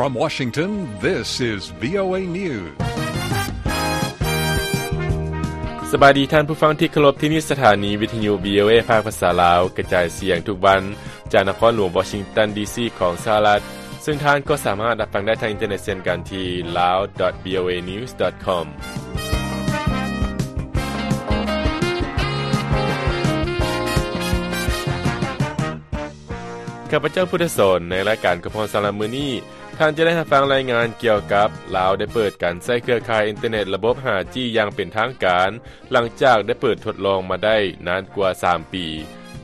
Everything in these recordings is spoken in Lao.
From Washington, this is VOA News. ສະບາຍດີທ່ານຜູ້ຟັງທີ່ເຄົາລົບ, ທີ່ນີ້ສະຖານີວິທະຍຸ VOA ພາກພາສາລາວ ກະຈາຍສຽງທຸກວັນ ຈາກນະຄອນຫຼວງວໍຊິງຕັນ ດີຊີ ຂອງສະຫະລັດ, ເຊິ່ງທ່ານກໍສາມາດຮັບຟັງໄດ້ທາງອິນເຕີເນັດເຊັ່ນກັນທີ່ lawvoanews.com. ຂ້າພະເຈົ້າ ພຸດທະສອນ ໃນລາຍການຄວາມພ້ອມສຳລັບມື້ນີ້, ທ່ານຈະໄດ້ຮັບຟັງລາຍງານກ່ຽວກັບ ລາວໄດ້ເປີດການໃຊ້ເຄືອຂ່າຍອິນເຕີເນັດລະບົບ ຫ້າຈີ ຢ່າງເປັນທາງການ ຫຼັງຈາກໄດ້ເປີດທົດລອງມາໄດ້ນານກວ່າສາມປີ,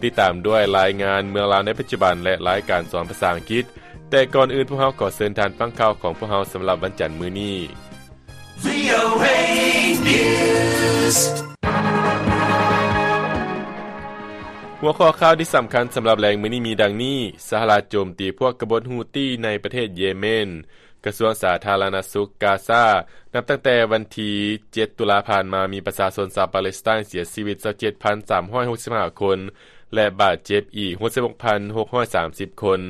ຕິດຕາມດ້ວຍລາຍງານເມືອງລາວໃນປັດຈຸບັນ ແລະ ລາຍການສອນພາສາອັງກິດ. ແຕ່ກ່ອນອື່ນ, ພວກເຮົາຂໍເຊີນທ່ານຟັງຂ່າວຂອງພວກເຮົາສຳລັບວັນຈັນມື້ນີ້. VOA News. ຫົວຂໍ້ຂ່າວທີ່ສຳຄັນສຳລັບແລງມື້ນີ້ມີດັ່ງນີ້: ສະຫະລັດໂຈມຕີພວກກະບົດຮູ້ຕີໃນປະເທດເຢເມນ. ກະຊວງສາທາລະນະສຸກກາຊາ ນັບຕັ້ງແຕ່ວັນທີເຈັດຕຸລາຜ່ານມາ ມີປະຊາຊົນຊາວປາເລສໄຕນເສຍຊີວິດຊາວເຈັດພັນສາມຮ້ອຍຫົກສິບຫ້າຄົນ ແລະ ບາດເຈັບອີກຫົກສິບຫົກພັນຫົກຮ້ອຍສາມສິບຄົນ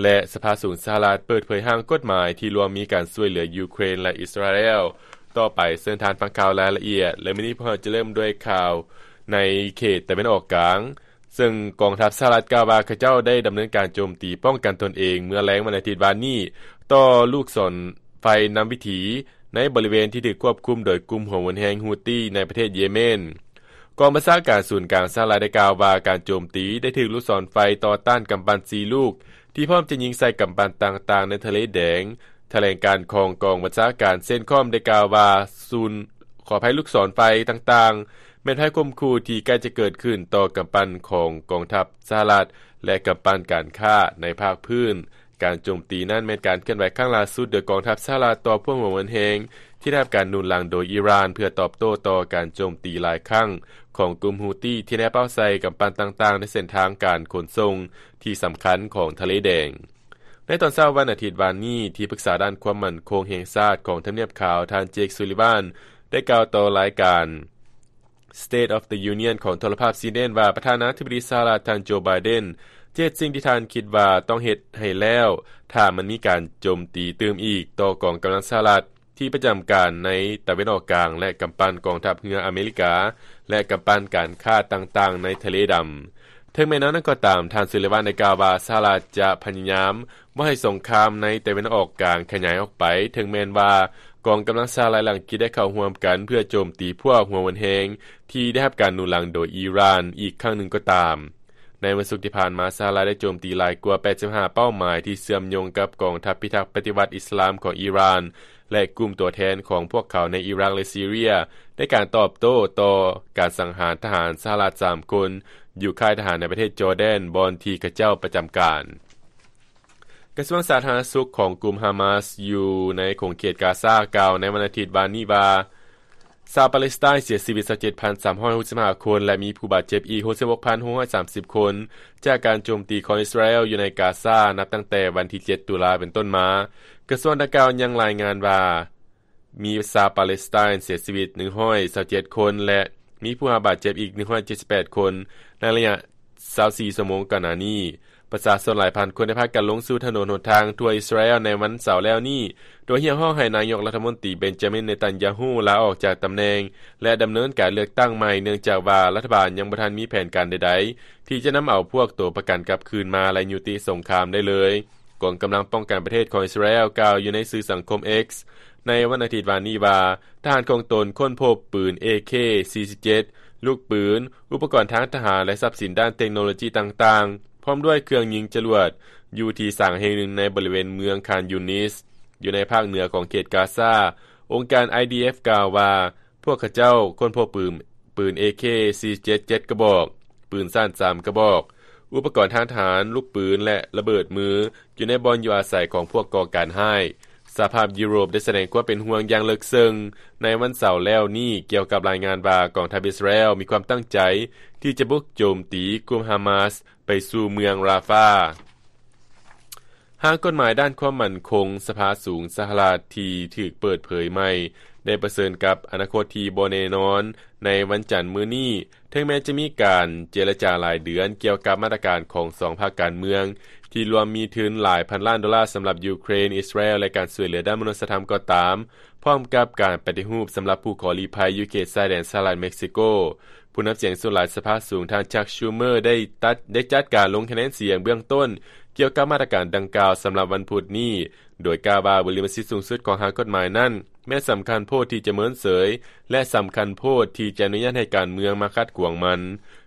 ແລະ ສະພາສູງສະຫະລັດເປີດເຜີຍຮ່າງກົດໝາຍທີ່ລວມມີການຊ່ວຍເຫຼືອຢູເຄຣນ ແລະ ອິດສະຣາແອລ. ຕໍ່ໄປເຊີນທ່ານຟັງຂ່າວລາຍລະອຽດ ແລະ ມື້ນີ້ພວກເຮົາຈະເລີ່ມດ້ວຍຂ່າວໃນເຂດຕາເວັນອອກກາງ. ເຊິ່ງກອງທັບສະຫະລັດກ່າວວ່າ ເຂົາເຈົ້າໄດ້ດຳເນີນການໂຈມຕີປ້ອງກັນຕົນເອງເມື່ອແລງວັນອາທິດວານນີ້ ຕໍ່ລູກສອນໄຟນຳວິຖີໃນບໍລິເວນທີ່ຖືກຄວບຄຸມໂດຍກຸ່ມຫົວຮຸນແຮງຮູ້ຕີໃນປະເທດເຢເມນ. ກອງບັນຊາການສູນກາງສະຫະລັດໄດ້ກ່າວວ່າ ການໂຈມຕີໄດ້ຖືກລູກສອນໄຟຕໍ່ຕ້ານກຳປັ່ນສີ່ລູກ ທີ່ພ້ອມຈະຍິງໃສ່ກຳປັ່ນຕ່າງໆໃນທະເລແດງ. ຖະແຫຼງການຂອງກອງບັນຊາການເຊັນຄອມໄດ້ກ່າວວ່າ ສູນ ຂໍອະໄພ, ລູກສອນໄຟຕ່າງໆ ແມ່ນໄພຂົ່ມຂູ່ທີ່ໃກ້ຈະເກີດຂຶ້ນຕໍ່ກຳປັ່ນຂອງກອງທັບສະຫະລັດ ແລະ ກຳປັ່ນການຄ້າໃນພາກພື້ນ. ການໂຈມຕີນັ້ນແມ່ນການເຄື່ອນໄຫວຄັ້ງລ່າສຸດໂດຍກອງທັບສະຫະລັດຕໍ່ພວກຫົວຮຸນແຮງທີ່ໄດ້ຮັບການໜູນຫຼັງໂດຍອີຣານ ເພື່ອຕອບໂຕ້ຕໍ່ການໂຈມຕີຫຼາຍຄັ້ງຂອງກຸ່ມຮູ້ຕີທີ່ໄດ້ເປົ້າໃສ່ກຳປັ່ນຕ່າງໆໃນເສັ້ນທາງການຂົນສົ່ງທີ່ສຳຄັນຂອງທະເລແດງ. ໃນຕອນເຊົ້າວັນອາທິດວານນີ້, ທີ່ປຶກສາດ້ານຄວາມໝັ້ນຄົງແຫ່ງຊາດຂອງທຳນຽບຂາວ ທ່ານ ເຈກ ຊູລີວານ ໄດ້ກ່າວຕໍ່ລາຍການ State of the Union ຂອງໂທລະພາບຊີເນນວ່າ ປະທານາທິບໍດີສະຫະລັດ ທ່ານ ໂຈ ໄບເດັນ ຈະເຮັດສິ່ງທີ່ທ່ານຄິດວ່າຕ້ອງເຮັດໃຫ້ແລ້ວ ຖ້າມັນມີການໂຈມຕີຕື່ມອີກຕໍ່ກອງກຳລັງສະຫະລັດ ທີ່ປະຈຳການໃນຕາເວັນອອກກາງ ແລະ ກຳປັ່ນກອງທັບເຮືອອາເມລິກາ ແລະ ກຳປັ່ນການຄ້າຕ່າງໆໃນທະເລດຳ. ເຖິງແມ່ນແນວນັ້ນກໍຕາມ, ທ່ານ ຊູລີວານ ໄດ້ກ່າວວ່າ ສະຫະລັດຈະພະຍາຍາມບໍ່ໃຫ້ສົງຄາມໃນຕາເວັນອອກກາງຂະຫຍາຍອອກໄປ, ເຖິງແມ່ນວ່າກອງກຳລັງສະຫະລັດ ແລະ ອັງກິດໄດ້ເຂົ້າຮ່ວມກັນເພື່ອໂຈມຕີພວກຫົວຮຸນແຮງທີ່ໄດ້ຮັບການໜູນຫຼັງໂດຍອີຣານອີກຄັ້ງໜຶ່ງກໍຕາມ. ໃນວັນສຸກທີ່ຜ່ານມາ, ສະຫະລັດໄດ້ໂຈມຕີຫຼາຍກວ່າແປດສິບຫ້າເປົ້າໝາຍທີ່ເຊື່ອມໂຍງກັບກອງທັບພິທັກປະຕິວັດອິດສະລາມຂອງອີຣານ ແລະ ກຸ່ມຕົວແທນຂອງພວກເຂົາໃນອີຣັກ ແລະ ຊີເຣຍ ໃນການຕອບໂຕ້ຕໍ່ການສັງຫານທະຫານສະຫະລັດສາມຄົນ ຢູ່ຄ້າຍທະຫານໃນປະເທດຈໍແດນ ບ່ອນທີ່ເຂົາເຈົ້າປະຈຳການ. ກະຊວງສາທາລະນະສຸກຂອງກຸ່ມຮາມາສຢູ່ໃນຂົງເຂດກາຊາ ກ່າວໃນວັນອາທິດວານນີ້ວ່າ ຊາວປາເລສໄຕນເສຍຊີວິດຊາວເຈັດພັນສາມຮ້ອຍຫົກສິບຫ້າຄົນ ແລະ ມີຜູ້ບາດເຈັບອີກຫົກສິບຫົກພັນຫົກຮ້ອຍສາມສິບຄົນ ຈາກການໂຈມຕີຂອງອິດສະຣາແອລຢູ່ໃນກາຊາ ນັບຕັ້ງແຕ່ວັນທີເຈັດຕຸລາເປັນຕົ້ນມາ. ກະຊວງດັ່ງກ່າວຍັງລາຍງານວ່າ ມີຊາວປາເລສໄຕນເສຍຊີວິດໜຶ່ງຮ້ອຍຊາວເຈັດຄົນ ແລະ ມີຜູ້ບາດເຈັບອີກໜຶ່ງຮ້ອຍເຈັດສິບແປດຄົນ ໃນໄລຍະຊາວສີ່ຊົ່ວໂມງກ່ອນໜ້ານີ້. ປະຊາຊົນຫຼາຍພັນຄົນໄດ້ພາກັນລົງສູ່ຖະໜົນຫົນທາງທົ່ວອິດສະຣາແອລໃນວັນເສົາແລ້ວນີ້ ໂດຍຮຽກຮ້ອງໃຫ້ນາຍົກລັດຖະມົນຕີ ເບນຈາມິນ ເນຕັນຢາຮູ້ ລາອອກຈາກຕຳແໜ່ງ ແລະ ດຳເນີນການເລືອກຕັ້ງໃໝ່, ເນື່ອງຈາກວ່າລັດຖະບານຍັງບໍ່ທັນມີແຜນການໃດໆ ທີ່ຈະນຳເອົາພວກໂຕປະກັນກັບຄືນມາ ແລະ ຍຸຕິສົງຄາມໄດ້ເລີຍ. ກອງກຳລັງປ້ອງກັນປະເທດຂອງອິດສະຣາແອລກ່າວຢູ່ໃນສື່ສັງຄົມ X ໃນວັນອາທິດວານນີ້ວ່າ ທະຫານຂອງຕົນຄົ້ນພົບປືນ ເອເຄ ສີ່ສິບເຈັດ ລູກປືນ, ອຸປະກອນທາງທະຫານ ແລະ ຊັບສິນດ້ານເຕັກໂນໂລຈີຕ່າງໆ ພ້ອມດ້ວຍເຄື່ອງຍິງຈະຫຼວດ ຢູ່ທີ່ສາງແຫ່ງໜຶ່ງໃນບໍລິເວນເມືອງຄານຢູນິສ ຢູ່ໃນພາກເໜືອຂອງເຂດກາຊາ. ອົງການ IDF ກ່າວວ່າ ພວກເຂົາເຈົ້າຄົ້ນພົບປືນ ປືນ ເອເຄ ສີ່ສິບເຈັດ ເຈັດກະບອກ, ປືນສັ້ນສາມກະບອກ, ອຸປະກອນທາງທະຫານ, ລູກປືນ ແລະ ລະເບີດມື ຢູ່ໃນບ່ອນຢູ່ອາໄສຂອງພວກກໍ່ການຮ້າຍ. ສະຫະພາບຢູໂຣບໄດ້ສະແດງຄວາມເປັນຫ່ວງຢ່າງເລິກເຊິ່ງໃນວັນເສົາແລ້ວນີ້ ກ່ຽວກັບລາຍງານວ່າ ກອງທັບອິດສະຣາແອລມີຄວາມຕັ້ງໃຈທີ່ຈະບຸກໂຈມຕີກຸ່ມຮາມາສໄປສູ່ເມືອງຣາຟາ. ຮ່າງກົດໝາຍດ້ານຄວາມໝັ້ນຄົງສະພາສູງສະຫະລັດທີ່ຖືກເປີດເຜີຍໃໝ່ ໄດ້ປະເຊີນກັບອະນາຄົດທີ່ບໍ່ແນ່ນອນໃນວັນຈັນມື້ນີ້, ເຖິງແມ່ນຈະມີການເຈລະຈາຫຼາຍເດືອນກ່ຽວກັບມາດຕະການຂອງສອງພັກການເມືອງ ທີ່ລວມມີທຶນຫຼາຍພັນລ້ານໂດລາສຳລັບຢູເຄຣນ, ອິດສະຣາແອລ ແລະ ການຊ່ວຍເຫຼືອດ້ານມະນຸດສະທຳກໍຕາມ, ພ້ອມກັບການປະຕິຮູບສຳລັບຜູ້ຂໍລີ້ໄພຢູ່ເຂດຊາຍແດນສະຫະລັດເມັກຊິໂກ. ຜູ້ນຳສຽງສ່ວນຫຼາຍສະພາສູງ ທ່ານ Chuck Schumer ໄດ້ຕັດ, ໄດ້ຈັດການລົງຄະແນນສຽງເບື້ອງຕົ້ນກ່ຽວກັບມາດຕະການດັ່ງກ່າວສຳລັບວັນພຸດນີ້, ໂດຍກ່າວວ່າ ບຸລິມະສິດສູງສຸດຂອງຮ່າງກົດໝາຍນັ້ນ ແມ່ນສຳຄັນໂພດທີ່ຈະເມີນເສີຍ ແລະ ສຳຄັນໂພດທີ່ຈະອະນຸຍາດໃຫ້ການເມືອງມາຂັດຂວາງມັນ.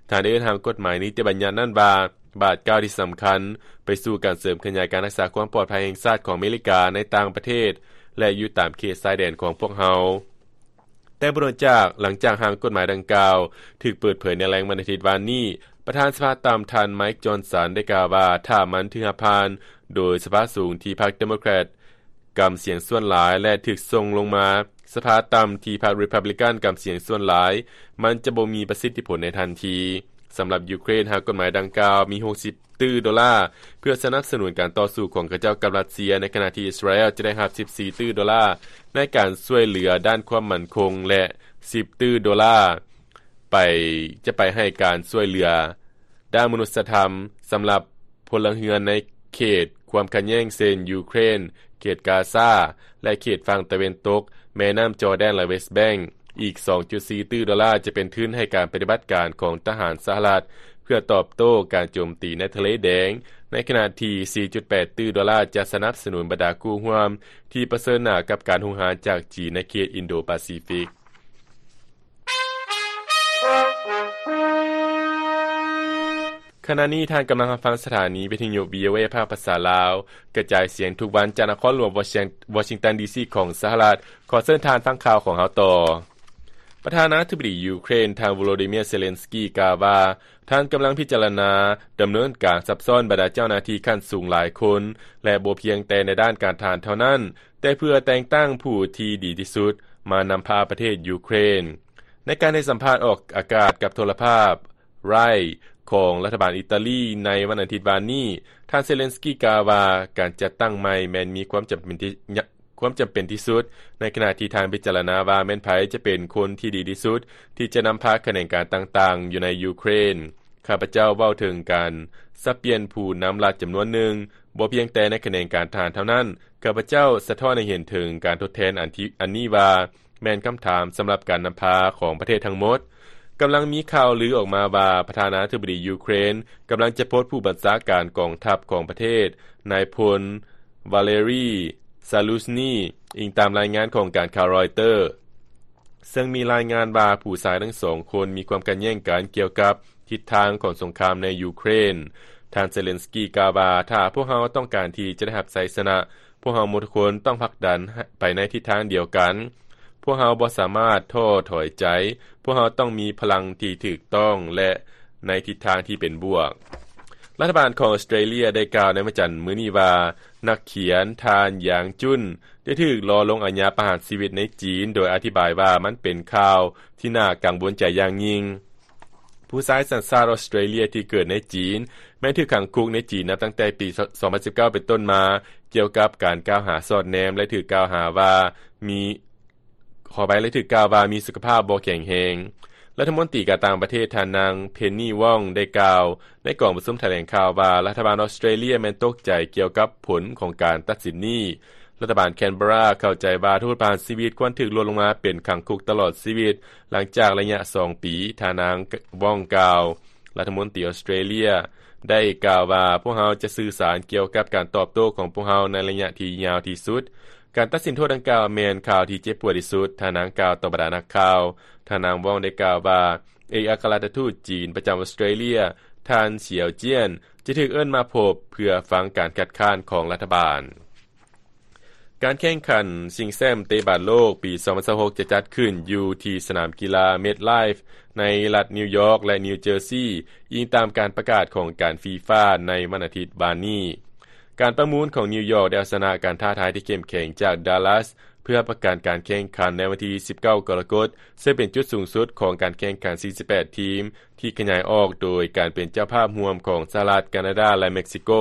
ທ່ານໄດ້ເອີ້ນຮ່າງກົດໝາຍນິຕິບັນຍັດນັ້ນວ່າ ບາດກ້າວທີ່ສຳຄັນໄປສູ່ການເສີມຂະຫຍາຍການຮັກສາຄວາມປອດໄພແຫ່ງຊາດຂອງອາເມລິກາໃນຕ່າງປະເທດ ແລະ ຢູ່ຕາມເຂດຊາຍແດນຂອງພວກເຮົາ. ແຕ່ບໍ່ດົນຈາກ, ຫຼັງຈາກຮ່າງກົດໝາຍດັ່ງກ່າວຖືກເປີດເຜີຍໃນແລງວັນອາທິດວານນີ້, ປະທານສະພາຕ່ຳ ທ່ານ Mike Johnson ໄດ້ກ່າວວ່າ ຖ້າມັນຖືກຮັບຜ່ານໂດຍສະພາສູງທີ່ພັກ Democrat ກຳສຽງສ່ວນຫຼາຍ ແລະ ຖືກສົ່ງລົງມາສະພາຕ່ຳທີ່ພັກ Republican ກຳສຽງສ່ວນຫຼາຍ, ມັນຈະບໍ່ມີປະສິດທິຜົນໃນທັນທີ. ສຳລັບຢູເຄຣນ, ຮ່າງກົດໝາຍດັ່ງກ່າວມີຫົກສິບຕື້ໂດລາ ເພື່ອສະໜັບສະໜູນການຕໍ່ສູ້ຂອງເຂົາເຈົ້າກັບຣັດເຊຍ, ໃນຂະນະທີ່ອິດສະຣາແອລຈະໄດ້ຮັບສິບສີ່ຕື້ໂດລາ ໃນການຊ່ວຍເຫຼືອດ້ານຄວາມໝັ້ນຄົງ ແລະ ສິບຕື້ໂດລາ ໄປ, ຈະໄປໃຫ້ການຊ່ວຍເຫຼືອດ້ານມະນຸດສະທຳສຳລັບພົນລະເຮືອນໃນເຂດຄວາມຂັດແຍ່ງ ເຊັ່ນ ຢູເຄຣນ, ເຂດກາຊາ ແລະ ເຂດຝັ່ງຕາເວັນຕົກແມ່ນ້ຳຈໍແດນ ແລະ West Bank. ອີກສອງຈຸດສີ່ຕື້ໂດລາຈະເປັນທຶນໃຫ້ການປະຕິບັດການຂອງທະຫານສະຫະລັດ ເພື່ອຕອບໂຕ້ການໂຈມຕີໃນທະເລແດງ, ໃນຂະນະທີ່ສີ່ຈຸດແປດຕື້ໂດລາຈະສະໜັບສະໜູນບັນດາຄູ່ຮ່ວມທີ່ປະເຊີນໜ້າກັບການຮຸກຮານຈາກຈີນໃນເຂດອິນໂດປາຊີຟິກ. ຂະນະນີ້ທ່ານກຳລັງຮັບຟັງສະຖານີວິທະຍຸ VOA ພາກພາສາລາວ ກະຈາຍສຽງທຸກວັນຈາກນະຄອນຫຼວງວໍຊິງຕັນ ດີຊີ ຂອງສະຫະລັດ. ຂໍເຊີນທ່ານຟັງຂ່າວຂອງເຮົາຕໍ່. ປະທານາທິບໍດີຢູເຄຣນ ທ່ານ ໂວໂລດີເມຍ ເຊເລັນສກີ ກ່າວວ່າ ທ່ານກຳລັງພິຈາລະນາດຳເນີນການຊັບຊ້ອນບັນດາເຈົ້າໜ້າທີ່ຂັ້ນສູງຫຼາຍຄົນ ແລະ ບໍ່ພຽງແຕ່ໃນດ້ານການທະຫານເທົ່ານັ້ນ, ແຕ່ເພື່ອແຕ່ງຕັ້ງຜູ້ທີ່ດີທີ່ສຸດມານຳພາປະເທດຢູເຄຣນ. ໃນການໃຫ້ສຳພາດອອກອາກາດກັບໂທລະພາບ Rai ຂອງລັດຖະບານອີຕາລີໃນວັນອາທິດວານນີ້, ທ່ານ ເຊເລັນສກີ ກ່າວວ່າ ການຈັດຕັ້ງໃໝ່ແມ່ນມີຄວາມຈຳເປັນທີ່ ຄວາມຈຳເປັນທີ່ສຸດ, ໃນຂະນະທີ່ທ່ານພິຈາລະນາວ່າແມ່ນໃຜຈະເປັນຄົນທີ່ດີທີ່ສຸດທີ່ຈະນຳພາຂະແໜງການຕ່າງໆຢູ່ໃນຢູເຄຣນ. ຂ້າພະເຈົ້າເວົ້າເຖິງການສັບປ່ຽນຜູ້ນຳລັດຈຳນວນໜຶ່ງ, ບໍ່ພຽງແຕ່ໃນຂະແໜງການທະຫານເທົ່ານັ້ນ, ຂ້າພະເຈົ້າສະທ້ອນໃຫ້ເຫັນເຖິງການທົດແທນອັນທີ່ ອັນນີ້ວ່າ ແມ່ນຄຳຖາມສຳລັບການນຳພາຂອງປະເທດທັງໝົດ. ກຳລັງມີຂ່າວລືອອກມາວ່າ ປະທານາທິບໍດີຢູເຄຣນກຳລັງຈະປົດຜູ້ບັນຊາການກອງທັບຂອງປະເທດ, ນາຍພົນ Valery Zaluzhnyi, ອີງຕາມລາຍງານຂອງການຂ່າວ Reuters, ເຊິ່ງມີລາຍງານວ່າຜູ້ຊາຍທັງສອງຄົນມີຄວາມຂັດແຍ່ງກັນກ່ຽວກັບທິດທາງຂອງສົງຄາມໃນຢູເຄຣນ. ທ່ານ Zelensky ກ່າວວ່າ ຖ້າພວກເຮົາຕ້ອງການທີ່ຈະໄດ້ຮັບໄຊຊະນະ, ພວກເຮົາໝົດທຸກຄົນຕ້ອງຜັກດັນໄປໃນທິດທາງດຽວກັນ. ພວກເຮົາບໍ່ສາມາດທໍ້ຖອຍໃຈ. ພວກເຮົາຕ້ອງມີພະລັງທີ່ຖືກຕ້ອງ ແລະ ໃນທິດທາງທີ່ເປັນບວກ. ລັດຖະບານຂອງອອສເຕຣເລຍໄດ້ກ່າວໃນວັນຈັນມື້ນີ້ວ່າ ນັກຂຽນທ່ານ ຢາງ ຈຸນ ໄດ້ຖືກລໍລົງອາຍາປະຫານຊີວິດໃນຈີນ, ໂດຍອະທິບາຍວ່າມັນເປັນຂ່າວທີ່ໜ້າກັງວົນໃຈຢ່າງຍິ່ງ. ຜູ້ຊາຍສັນຊາດອອສເຕຣເລຍທີ່ເກີດໃນຈີນ ແມ່ນຖືກຂັງຄຸກໃນຈີນນັບຕັ້ງແຕ່ປີສອງພັນສິບເກົ້າເປັນຕົ້ນມາ ກ່ຽວກັບການກ່າວຫາສອດແນມ ແລະ ຖືກກ່າວຫາວ່າມີ ຂໍອະໄພ ແລະ ຖືກກ່າວວ່າມີສຸຂະພາບບໍ່ແຂງແຮງ. ລັດຖະມົນຕີການຕ່າງປະເທດ ທ່ານນາງ ເພັນນີ ວອງ ໄດ້ກ່າວໃນກອງປະຊຸມຖະແຫຼງຂ່າວວ່າ ລັດຖະບານອອສເຕຣເລຍແມ່ນຕົກໃຈກ່ຽວກັບຜົນຂອງການຕັດສິນນີ້. ລັດຖະບານແຄນເບຣາເຂົ້າໃຈວ່າໂທດປະຫານຊີວິດຄວນຖືກລົດລົງມາເປັນຂັງຄຸກຕະຫຼອດຊີວິດ ຫຼັງຈາກໄລຍະສອງປີ, ທ່ານນາງ ວອງ ກ່າວ. ລັດຖະມົນຕີອອສເຕຣເລຍໄດ້ກ່າວວ່າ ພວກເຮົາຈະສື່ສານກ່ຽວກັບການຕອບໂຕ້ຂອງພວກເຮົາໃນໄລຍະທີ່ຍາວທີ່ສຸດ. ການຕັດສິນໂທດດັ່ງກ່າວແມ່ນຂ່າວທີ່ເຈັບປວດທີ່ສຸດ, ທ່ານນາງກ່າວຕໍ່ບັນດານັກຂ່າວ. ທ່ານນາງ ວອງ ໄດ້ກ່າວວ່າ ເອກອັກຄະລັດຖະທູດຈີນປະຈຳອອສເຕຣເລຍ ທ່ານ ສຽວ ຈຽນ ຈະຖືກເອີ້ນມາພົບເພື່ອຟັງການຄັດຄ້ານຂອງລັດຖະບານ. ການແຂ່ງຂັນຊິງແຊ້ມເຕະບານໂລກປີສອງພັນຊາວຫົກ ຈະຈັດຂຶ້ນຢູ່ທີ່ສະໜາມກິລາ MetLife ໃນລັດນິວຢອກ ແລະ ນິວເຈີຊີ, ອີງຕາມການປະກາດຂອງການ FIFA ໃນວັນອາທິດວານນີ້. ການປະມູນຂອງນິວຢອກໄດ້ເອົາຊະນະການທ້າທາຍທີ່ເຂັ້ມແຂງຈາກ Dallas ເພື່ອຮັບປະກັນການແຂ່ງຂັນໃນວັນທີສິບເກົ້າ ກໍລະກົດ, ເຊິ່ງເປັນຈຸດສູງສຸດຂອງການແຂ່ງຂັນສີ່ສິບແປດທີມ ທີ່ຂະຫຍາຍອອກໂດຍການເປັນເຈົ້າພາບຮ່ວມຂອງສະຫະລັດ, ການາດາ ແລະ ເມັກຊິໂກ.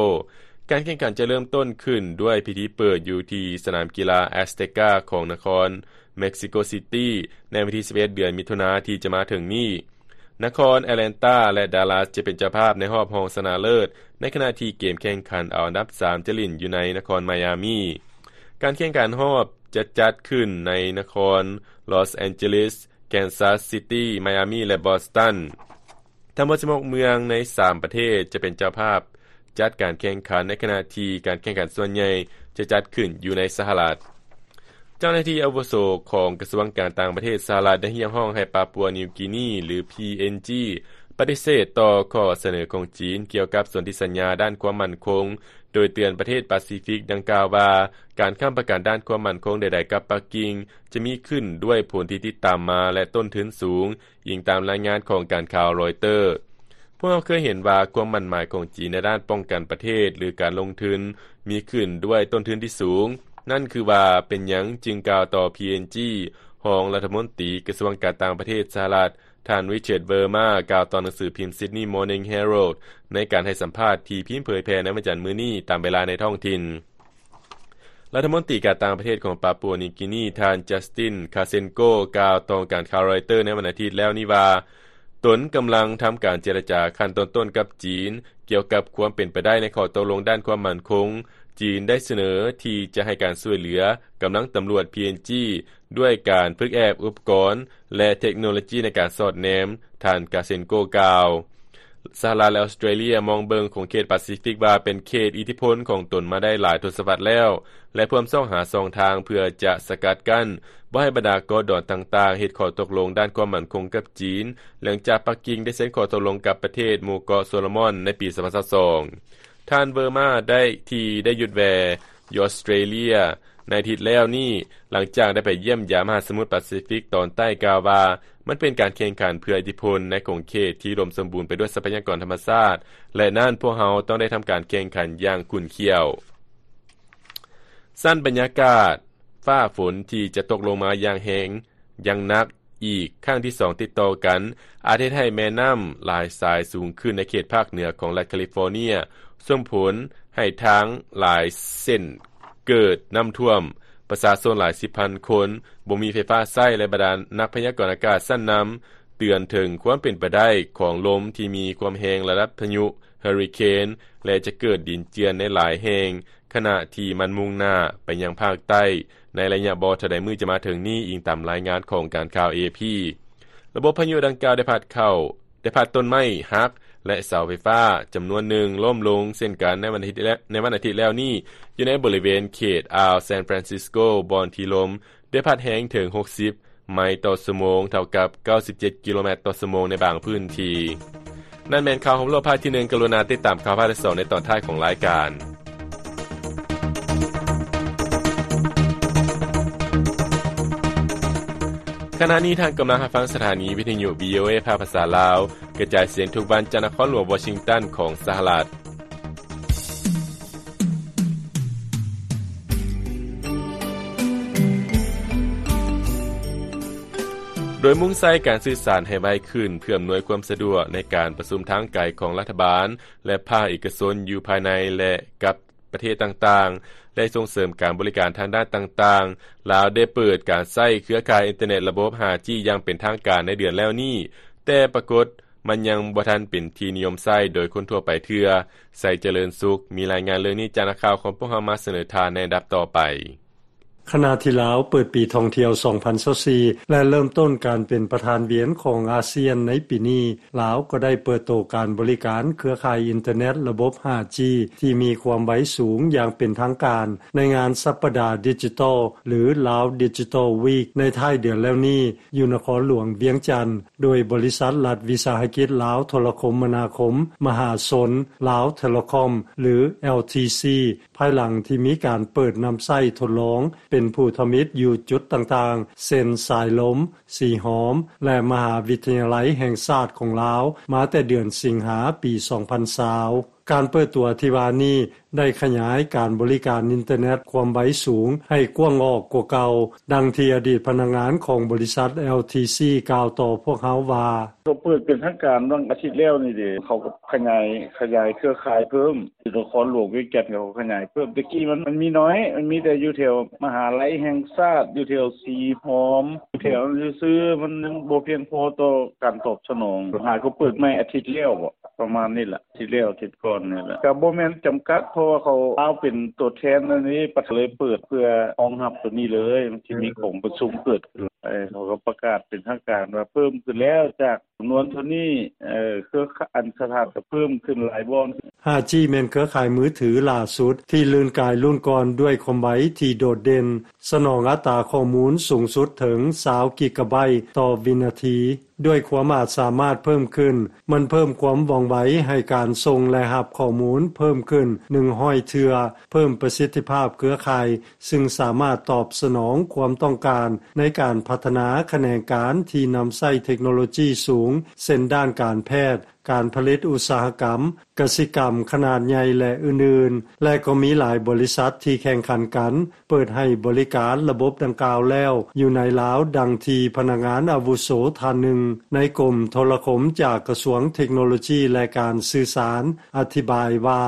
ການແຂ່ງຂັນຈະເລີ່ມຕົ້ນຂຶ້ນດ້ວຍພິທີເປີດຢູ່ທີ່ສະໜາມກິລາແອັສເຕກາຂອງນະຄອນເມັກຊິໂກຊິຕີ ໃນວັນທີສິບເອັດ ເດືອນມິຖຸນາທີ່ຈະມາເຖິງນີ້. ນະຄອນແອັດແລນຕາ ແລະ ດາລັສຈະເປັນເຈົ້າພາບໃນຮອບຮອງຊະນະເລີດ, ໃນຂະນະທີ່ເກມແຂ່ງຂັນເອົາອັນດັບສາມຈະຫຼິ້ນຢູ່ໃນນະຄອນໄມອາມີ. ການແຂ່ງຂັນຮອບຈະຈັດຂຶ້ນໃນນະຄອນລອສແອນເຈລິສ, ແກນຊັສຊິຕີ, ໄມອາມີ ແລະ ບອສຕັນ. ທັງໝົດສິບຫົກເມືອງໃນສາມປະເທດຈະເປັນເຈົ້າພາບຈັດການແຂ່ງຂັນ, ໃນຂະນະທີ່ການແຂ່ງຂັນສ່ວນໃຫຍ່ຈະຈັດຂຶ້ນຢູ່ໃນສະຫະລັດ. ເຈົ້າໜ້າທີ່ອາວຸໂສຂອງກະຊວງການຕ່າງປະເທດສະຫະລັດໄດ້ຮຽກຮ້ອງໃຫ້ປາປົວນິວກີນີ ຫຼື ພີເອັນຈີ ປະຕິເສດຕໍ່ຂໍ້ສະເໜີຂອງຈີນກ່ຽວກັບສົນທິສັນຍາດ້ານຄວາມໝັ້ນຄົງ, ໂດຍເຕືອນປະເທດປາຊີຟິກດັ່ງກ່າວວ່າ ການຄ້ຳປະກັນດ້ານຄວາມໝັ້ນຄົງໃດໆກັບປັກກິ່ງ ຈະມີຂຶ້ນດ້ວຍຜົນທີ່ຕິດຕາມມາ ແລະ ຕົ້ນທຶນສູງ, ອີງຕາມລາຍງານຂອງການຂ່າວຣອຍເຕີ. ພວກເຮົາເຄີຍເຫັນວ່າຄວາມໝັ້ນໝາຍຂອງຈີນໃນດ້ານປ້ອງກັນປະເທດ ຫຼື ການລົງທຶນ ມີຂຶ້ນດ້ວຍຕົ້ນທຶນທີ່ສູງ. ນັ້ນຄືວ່າເປັນຫຍັງຈຶ່ງກ່າວຕໍ່ ພີເອັນຈີ ຮອງລັດຖະມົນຕີກະຊວງການຕ່າງປະເທດສະຫະລັດ ທ່ານ Richard Verma ກ່າວຕໍ່ໜັງສືພິມ Sydney Morning Herald ໃນການໃຫ້ສຳພາດທີ່ພິມເຜີຍແຜ່ໃນວັນຈັນມື້ນີ້ຕາມເວລາໃນທ້ອງຖິ່ນ. ລັດຖະມົນຕີການຕ່າງປະເທດຂອງປາປົວນິວກີນີ ທ່ານ Justin Khasenko ກ່າວຕໍ່ການຂ່າວຣອຍເຕີໃນວັນອາທິດແລ້ວນີ້ວ່າ ຕົນກຳລັງທຳການເຈລະຈາຂັ້ນຕົ້ນໆກັບຈີນ ກ່ຽວກັບຄວາມເປັນໄປໄດ້ໃນຂໍ້ຕົກລົງດ້ານຄວາມໝັ້ນຄົງ. ຈີນໄດ້ສະເໜີທີ່ຈະໃຫ້ການຊ່ວຍເຫຼືອກຳລັງຕຳຫຼວດ ພີເອັນຈີ ດ້ວຍການຝຶກແອບອຸປະກອນ ແລະ ເທັກໂນໂລຈີໃນການສອດແນມ, ທ່ານ Khasenko ກ່າວ. ສະຫະລັດ ແລະ ອອສເຕຣເລຍມອງເບິ່ງຂົງເຂດປາຊີຟິກວ່າເປັນເຂດອິດທິພົນຂອງຕົນມາໄດ້ຫຼາຍທົດສະວັດແລ້ວ ແລະ ພວມຊອກຫາຊ່ອງທາງເພື່ອຈະສະກັດກັ້ນ ບໍ່ໃຫ້ບັນດາເກາະດອນຕ່າງໆເຮັດຂໍ້ຕົກລົງດ້ານຄວາມໝັ້ນຄົງກັບຈີນ, ຫຼັງຈາກປັກກິ່ງໄດ້ເຊັນຂໍ້ຕົກລົງກັບປະເທດໝູ່ເກາະໂຊໂລມອນໃນປີສອງພັນຊາວສອງ. ທ່ານ Verma ໄດ້ ທີ່ໄດ້ຢຸດແວ່ຢູ່ອອສເຕຣເລຍໃນອາທິດແລ້ວນີ້, ຫຼັງຈາກໄດ້ໄປຢ້ຽມຢາມມະຫາສະໝຸດປາຊີຟິກຕອນໃຕ້, ກ່າວວ່າ ມັນເປັນການແຂ່ງຂັນເພື່ອອິດທິພົນໃນຂົງເຂດທີ່ອຸດົມສົມບູນໄປດ້ວຍຊັບພະຍາກອນທຳມະຊາດ, ແລະ ນັ້ນພວກເຮົາຕ້ອງໄດ້ທຳການແຂ່ງຂັນຢ່າງຂຸ້ນຂ້ຽວ. ຊັ້ນບັນຍາກາດ ຟ້າຝົນທີ່ຈະຕົກລົງມາຢ່າງແຮງ, ຢ່າງໜັກ ອີກຄັ້ງທີສອງຕິດຕໍ່ກັນ ອາດເຮັດໃຫ້ແມ່ນ້ຳຫຼາຍສາຍສູງຂຶ້ນໃນເຂດພາກເໜືອຂອງລັດຄາລິຟໍເນຍ, ສົ່ງຜົນໃຫ້ທາງຫຼາຍເສັ້ນເກີດນ້ຳຖ້ວມ, ປະຊາຊົນຫຼາຍສິບພັນຄົນບໍ່ມີໄຟຟ້າໃຊ້ ແລະ ບັນດານັກພະຍາກອນອາກາດຊັ້ນນຳເຕືອນເຖິງຄວາມເປັນໄປໄດ້ຂອງລົມທີ່ມີຄວາມແຮງລະດັບພາຍຸເຮີຣິເຄນ ແລະ ຈະເກີດດິນເຈື່ອນໃນຫຼາຍແຫ່ງ ຂະນະທີ່ມັນມຸ່ງໜ້າໄປຍັງພາກໃຕ້ໃນໄລຍະບໍ່ເທົ່າໃດມື້ຈະມາເຖິງນີ້, ອີງຕາມລາຍງານຂອງການຂ່າວ ເອ ເອ ພີ. ລະບົບພາຍຸດັ່ງກ່າວໄດ້ພັດເຂົ້າ, ໄດ້ພັດຕົ້ນໄມ້ຫັກ ແລະ ເສົາໄຟຟ້າຈຳນວນໜຶ່ງລົ້ມລົງເຊັ່ນກັນໃນວັນອາທິດແລ-, ໃນວັນອາທິດແລ້ວນີ້ ຢູ່ໃນບໍລິເວນເຂດອ່າວ San Francisco ບ່ອນທີ່ລົມ ໄດ້ພັດແຮງເຖິງຫົກສິບໄມຕໍ່ຊົ່ວໂມງ, ເທົ່າກັບເກົ້າສິບເຈັດກິໂລແມັດຕໍ່ຊົ່ວໂມງໃນບາງພື້ນທີ່. ນັ້ນແມ່ນຂ່າວຮອບໂລກພາກທີໜຶ່ງ. ກະລຸນາຕິດຕາມຂ່າວພາກທີສອງໃນຕອນທ້າຍຂອງລາຍການ. ຂະນະນີ້ທ່ານກຳລັງຮັບຟັງສະຖານີວິທະຍຸ ວີ ໂອ ເອ ພາກພາສາລາວ ກະຈາຍສຽງທຸກວັນຈາກນະຄອນຫຼວງວໍຊິງຕັນຂອງສະຫະລັດ. ໂດຍມຸ່ງໃສ່ການສື່ສານໃຫ້ໄວຂຶ້ນ ເພື່ອອຳນວຍຄວາມສະດວກໃນການປະຊຸມທາງໄກຂອງລັດຖະບານ ແລະ ພາກເອກະຊົນຢູ່ພາຍໃນ ແລະ ກັບປະເທດຕ່າງໆ ແລະ ສົ່ງເສີມການບໍລິການທາງດ້ານຕ່າງໆ, ລາວໄດ້ເປີດການໃຊ້ເຄືອຂ່າຍອິນເຕີເນັດລະບົບຫ້າຈີ ຢ່າງເປັນທາງການໃນເດືອນແລ້ວນີ້, ແຕ່ປາກົດ ມັນຍັງບໍ່ທັນເປັນທີ່ນິຍົມໃຊ້ໂດຍຄົນທົ່ວໄປເທື່ອ. ໄຊຈະເລີນສຸກ ມີລາຍງານເລື່ອງນີ້ຈາກນັກຂ່າວຂອງພວກເຮົາມາສະເໜີທ່ານໃນລຳດັບຕໍ່ໄປ. ຂະນະທີ່ລາວເປີດປີທ່ອງທ່ຽວສອງພັນຊາວສີ່ ແລະ ເລີ່ມຕົ້ນການເປັນປະທານວຽນຂອງອາຊຽນໃນປີນີ້, ລາວກໍໄດ້ເປີດໂຕການບໍລິການເຄືອຂ່າຍອິນເຕີເນັດລະບົບຫ້າຈີ ທີ່ມີຄວາມໄວສູງຢ່າງເປັນທາງການ ໃນງານສັບປະດາດິຈິຕອລ ຫຼື Lao Digital Week ໃນທ້າຍເດືອນແລ້ວນີ້ ຢູ່ນະຄອນຫຼວງວຽງຈັນ ໂດຍບໍລິສັດລັດວິສາຫະກິດລາວໂທລະຄົມມະນາຄົມມະຫາຊົນ Lao Telecom ຫຼື LTC ພາຍຫຼັງທີ່ມີການເປີດນຳໃຊ້ທົດລອງເປັນຜູ້ທຳອິດຢູ່ຈຸດຕ່າງໆ ເຊັ່ນ ສາຍລົມ, ສີຫອມ ແລະ ມະຫາວິທະຍາໄລແຫ່ງຊາດຂອງລາວ ມາແຕ່ເດືອນສິງຫາ ປີສອງພັນຊາວ. ການເປີດຕົວທີ່ວ່ານີ້ ໄດ້ຂະຫຍາຍການບໍລິການອິນເຕີເນັດຄວາມໄວສູງໃຫ້ກວ້າງອອກກວ່າເກົ່າ, ດັ່ງທີ່ອະດີດພະນັກງານຂອງບໍລິສັດ ແອລທີຊີ ກ່າວຕໍ່ພວກເຮົາວ່າ: ເຂົາເປີດເປັນທາງການຫວ່າງອາທິດແລ້ວນີ້ເດ ເຂົາກໍຂະຫຍາຍ ຂະຫຍາຍເຄືອຂ່າຍເພີ່ມ ທີ່ນະຄອນຫຼວງວຽງຈັນ ເຂົາຂະຫຍາຍເພີ່ມ. ແຕ່ກີ້ມັນ ມັນມີໜ້ອຍ ມັນມີແຕ່ຢູ່ແຖວມະຫາໄລແຫ່ງຊາດ ຢູ່ແຖວສີຫອມ ຢູ່ແຖວນັ້ນຊື່ໆ ມັນຍັງບໍ່ພຽງພໍຕໍ່ການຕອບສະໜອງ. ຫາກໍເປີດໃໝ່ອາທິດແລ້ວບໍ ປະມານນີ້ລະ ອາທິດແລ້ວ ອາທິດກ່ອນນີ້ລະ ກໍບໍ່ແມ່ນຈຳກັດ ເພາະວ່າເຂົາລາວເປັນຕົວແທນອັນນີ້ ປະເທດເລີຍເປີດເພື່ອຮອງຮັບຕົວນີ້ເລີຍ. ມັນຊິມີກອງປະຊຸມເກີດຂຶ້ນ ເອີ ເຂົາກໍປະກາດເປັນທາງການວ່າເພີ່ມຂຶ້ນແລ້ວ ຈາກຈຳນວນເທົ່ານີ້ ເອີ ເຄືອ ອັນ ສະຖານກໍເພີ່ມຂຶ້ນຫຼາຍບ່ອນ. ຫ້າຈີ ແມ່ນເຄືອຂ່າຍມືຖືຫຼ້າສຸດທີ່ລື່ນກາຍລຸ້ນກ່ອນດ້ວຍຄວາມໄວທີ່ໂດດເດັ່ນ, ສະໜອງອັດຕາຂໍ້ມູນສູງສຸດເຖິງຊາວກິກະໄບຕໍ່ວິນາທີ. ດ້ວຍຄວາມອາດສາມາດເພີ່ມຂຶ້ນ, ມັນເພີ່ມຄວາມວ່ອງໄວໃຫ້ການສົ່ງ ແລະ ຮັບຂໍ້ມູນເພີ່ມຂຶ້ນໜຶ່ງຮ້ອຍເທື່ອ, ເພີ່ມປະສິດທິພາບເຄືອຂ່າຍ, ຊຶ່ງສາມາດຕອບສະໜອງຄວາມຕ້ອງການໃນການພັດທະນາຂະແໜງການທີ່ນຳໃຊ້ເທັກໂນໂລຈີສູງ, ເຊັ່ນ ດ້ານການແພດ, ການຜະລິດອຸດສາຫະກຳ, ກະສິກຳຂະໜາດໃຫຍ່ ແລະ ອື່ນໆ ແລະ ກໍມີຫຼາຍບໍລິສັດທີ່ແຂ່ງຂັນກັນ ເປີດໃຫ້ບໍລິການລະບົບດັ່ງກ່າວແລ້ວຢູ່ໃນລາວ, ດັ່ງທີ່ພະນັກງານອາວຸໂສທ່ານໜຶ່ງໃນກົມໂທລະຄົມຈາກກະຊວງເທັກໂນໂລຈີ ແລະ ການສື່ສານ ອະທິບາຍວ່າ: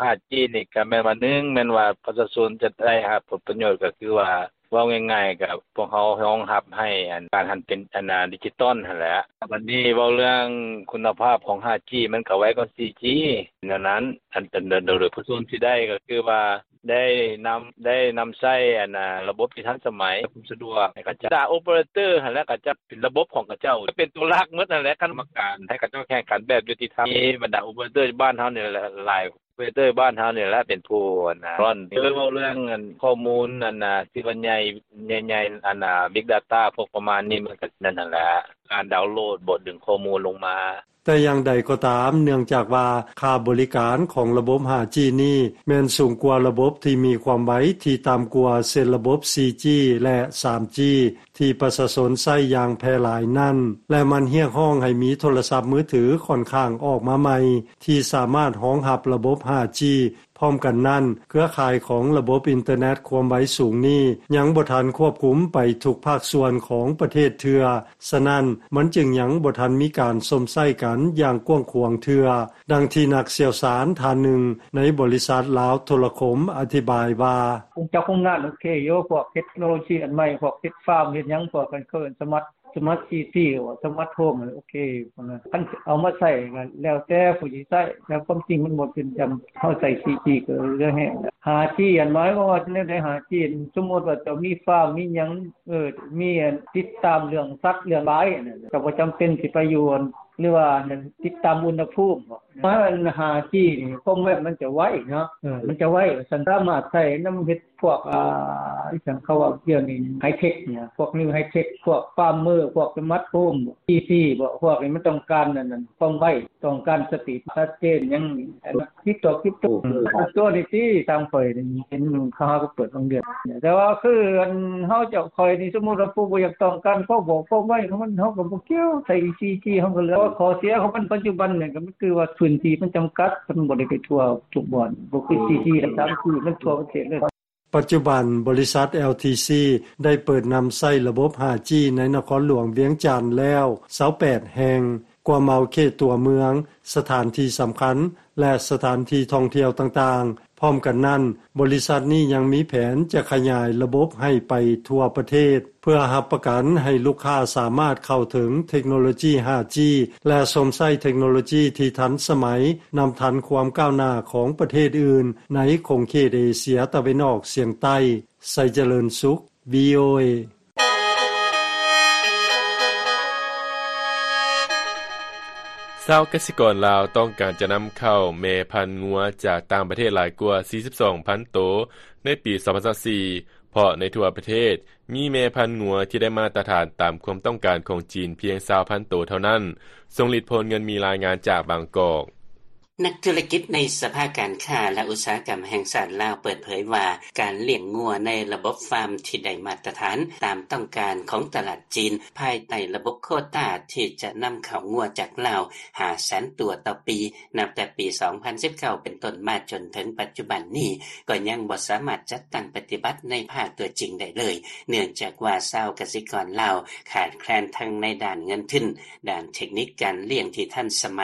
ຫ້າຈີ ນີ້ກໍແມ່ນວ່າ ໜຶ່ງ ແມ່ນວ່າປະຊາຊົນຈະໄດ້ຮັບຜົນປະໂຫຍດ ກໍຄືວ່າ ເວົ້າງ່າຍໆ ກໍພວກເຮົາຮອງຮັບໃຫ້ອັນ ການຫັນເປັນອັນນາ ດິຈິຕອນຫັ້ນແຫຼະ. ບັດນີ້ເວົ້າເລື່ອງຄຸນນະພາບຂອງຫ້າຈີ ມັນກໍໄວກວ່າສີ່ຈີ ແນວນັ້ນ. ອັນ ອັນ ໂດຍ ໂດຍປະຊາຊົນຊິໄດ້ກໍຄືວ່າ ໄດ້ນຳ ໄດ້ນຳໃຊ້ອັນນາ ລະບົບທີ່ທັນສະໄໝ ຄວາມສະດວກໃຫ້ເຂົາເຈົ້າ. ບັນດາໂອເປີເຕີຫັ້ນແຫຼະ ເຂົາເຈົ້າເປັນລະບົບຂອງເຂົາເຈົ້າ ເປັນຕົວຫຼັກໝົດຫັ້ນແຫຼະ. ກຳມະການໃຫ້ເຂົາເຈົ້າແຂ່ງຂັນແບບຍຸຕິທຳ ບັນດາໂອເປີເຕີບ້ານເຮົານີ້ແຫຼະ ຫຼາຍ ໂອເປເຕີບ້ານເຮົານີ້ແຫຼະເປັນຜູ້ອັນນາ ເວົ້າເລື່ອງອັນຂໍ້ມູນອັນນາ ທີ່ວ່າໃຫຍ່ ໃຫຍ່ໆ ອັນນາ ບິກດາຕ້າ ພວກປະມານນີ້ ມັນກໍນັ້ນຫັ້ນແຫຼະ ການດາວໂຫຼດບໍ ດຶງຂໍ້ມູນລົງມາ. ແຕ່ຢ່າງໃດກໍຕາມ, ເນື່ອງຈາກວ່າຄ່າບໍລິການຂອງລະບົບຫ້າຈີນີ້ ແມ່ນສູງກວ່າລະບົບທີ່ມີຄວາມໄວທີ່ຕ່ຳກວ່າ ເຊັ່ນ ລະບົບສີ່ຈີ ແລະ ສາມຈີ ທີ່ປະຊາຊົນໃຊ້ຢ່າງແຜ່ຫຼາຍນັ້ນ ແລະ ມັນຮຽກຮ້ອງໃຫ້ມີໂທລະສັບມືຖືຂ້ອນຂ້າງອອກມາໃໝ່ ທີ່ສາມາດຮອງຮັບລະບົບຫ້າຈີ. ພ້ອມກັນນັ້ນ, ເຄືອຂ່າຍຂອງລະບົບອິນເຕີເນັດຄວາມໄວສູງນີ້ ຍັງບໍ່ທັນຄວບຄຸມໄປທຸກພາກສ່ວນຂອງປະເທດເທື່ອ, ສະນັ້ນ, ມັນຈຶ່ງຍັງບໍ່ທັນມີການຊົມໃຊ້ກັນຢ່າງກວ້າງຂວາງເທື່ອ, ດັ່ງທີ່ນັກຊ່ຽວຊານທ່ານໜຶ່ງໃນບໍລິສັດລາວໂທລະຄົມອະທິບາຍວ່າ: ຄົງຈັກຄົງງານໂອເຄຢູ່ ພວກເຮັດເທັກໂນໂລຊີອັນໃໝ່ ພວກເຮັດຟາມເຮັດຫຍັງ ພວກເຂົາເອີ້ນສະມາດ ສະມາດຊີທີ ຫຼືວ່າສະມາດໂຮມ ໂອເຄ ພວກນັ້ນ ຄັນເອົາມາໃຊ້ກໍແລ້ວແຕ່ຜູ້ຊິໃຊ້ ແຕ່ຄວາມຈິງມັນບໍ່ເປັນຈຳ ເຮົາໃຊ້ສີ່ຈີກໍເຫຼືອແຮງ. ຫ້າຈີ ອັນໝາຍຄວາມວ່າແນວໃດ ຫ້າຈີ ສົມມຸດວ່າເຈົ້າມີຟາມມີຫຍັງ ເອີ ມີອັນຕິດຕາມເລື່ອງສັດເລື່ອງຫຼາຍ ເຈົ້າບໍ່ຈຳເປັນຊິໄປຢູ່ ຫຼືວ່າຕິດຕາມອຸນຫະພູມບໍ ໝາຍວ່າຫ້າຈີນີ້ຄວາມໄວມັນຈະໄວເນາະ ເອີ ມັນຈະໄວ ວ່າຊັ້ນ ສາມາດໃຊ້ນຳເຮັດ ພວກ ອ່າ ອີຫຍັງເຂົາເວົ້າດຽວນີ້ ໄຮເທັກນີ້ ພວກນິວໄຮເທັກ ພວກຟາມເມີ ພວກສະມາດໂຮມ ອີຊີບໍ ພວກນີ້ມັນຕ້ອງການອັນນັ້ນ ຄວາມໄວ ຕ້ອງການສະຕີດ ຊັດເຈນ ຫຍັງ ຄຣິບໂຕ ຄຣິບໂຕ ເອີ ຕົວນີ້ຕິ ຕາມຂ້ອຍນີ້ເຫັນເຂົາຫາກໍເປີດບາງເດືອນ ແຕ່ວ່າຄືອັນເຮົາເຈົ້າຂ້ອຍນີ້ ສົມມຸດວ່າຜູ້ບໍ່ຢາກຕ້ອງການຄວາມເວົ້າຄວາມໄວຂອງມັນ ເຮົາກໍບໍ່ກ່ຽວ ໃຊ້ສີ່ຈີ ເຮົາກໍເຫຼືອ ຂໍ້ເສຍຂອງມັນປັດຈຸບັນນີ້ກໍຄືວ່າພື້ນທີ່ມັນຈຳກັດ ມັນບໍ່ໄດ້ໄປທົ່ວທຸກບ່ອນ ບໍ່ຄືສີ່ຈີ ແລະ ສາມຈີ ມັນທົ່ວປະເທດເລີຍ. ປັດຈຸບັນ, ບໍລິສັດ ແອລທີຊີ ໄດ້ເປີດນຳໃຊ້ລະບົບຫ້າຈີ ໃນນະຄອນຫຼວງວຽງຈັນແລ້ວຊາວແປດແຫ່ງ, ກວມເອົາເຂດຕົວເມືອງ, ສະຖານທີ່ສຳຄັນ ແລະ ສະຖານທີ່ທ່ອງທ່ຽວຕ່າງໆ. ພ້ອມກັນນັ້ນ, ບໍລິສັດນີ້ຍັງມີແຜນຈະຂະຫຍາຍລະບົບໃຫ້ໄປທົ່ວປະເທດ, ເພື່ອຮັບປະກັນໃຫ້ລູກຄ້າສາມາດເຂົ້າເຖິງເທັກໂນໂລຈີຫ້າຈີ ແລະ ຊົມໃຊ້ເທັກໂນໂລຈີທີ່ທັນສະໄໝ, ນຳທັນຄວາມກ້າວໜ້າຂອງປະເທດອື່ນໃນຂົງເຂດເອເຊຍຕາເວັນອອກສຽງໃຕ້. ໄຊຈະເລີນສຸກ ວີໂອເອ. ຊາວກະສິກອນລາວຕ້ອງການຈະນຳເຂົ້າແມ່ພັນງົວຈາກຕ່າງປະເທດຫຼາຍກວ່າສີ່ສິບສອງພັນໂຕໃນປີສອງພັນຊາວສີ່ ເພາະໃນທົ່ວປະເທດມີແມ່ພັນງົວທີ່ໄດ້ມາດຕະຖານຕາມຄວາມຕ້ອງການຂອງຈີນພຽງຊາວພັນໂຕເທົ່ານັ້ນ. ຊົງລິດ ໂພນເງິນ ມີລາຍງານຈາກບາງກອກ. ນັກທຸລະກິດໃນສະພາການຄ້າ ແລະ ອຸດສາຫະກຳແຫ່ງຊາດລາວ ເປີດເຜີຍວ່າ ການລ້ຽງງົວໃນລະບົບຟາມທີ່ໄດ້ມາດຕະຖານ ຕາມຕ້ອງການຂອງຕະຫຼາດຈີນ ພາຍໃຕ້ລະບົບໂຄຕາທີ່ຈະນຳເຂົ້າງົວຈາກລາວ ຫ້າແສນຕົວຕໍ່ປີ ນັບແຕ່ປີສອງພັນສິບເກົ້າເປັນຕົ້ນມາ ຈົນເຖິງປັດຈຸບັນນີ້ ກໍຍັງບໍ່ສາມາດຈັດຕັ້ງປະຕິບັດໃນພາກຕົວຈິງໄດ້ເລີຍ ເນື່ອງຈາກວ່າຊາວກະສິກອນລາວຂາດແຄລນທັງໃນດ້ານເງິນທຶນ, ດ້ານເທັກນິກການລ້ຽງທີ່ທັນສະໄໝ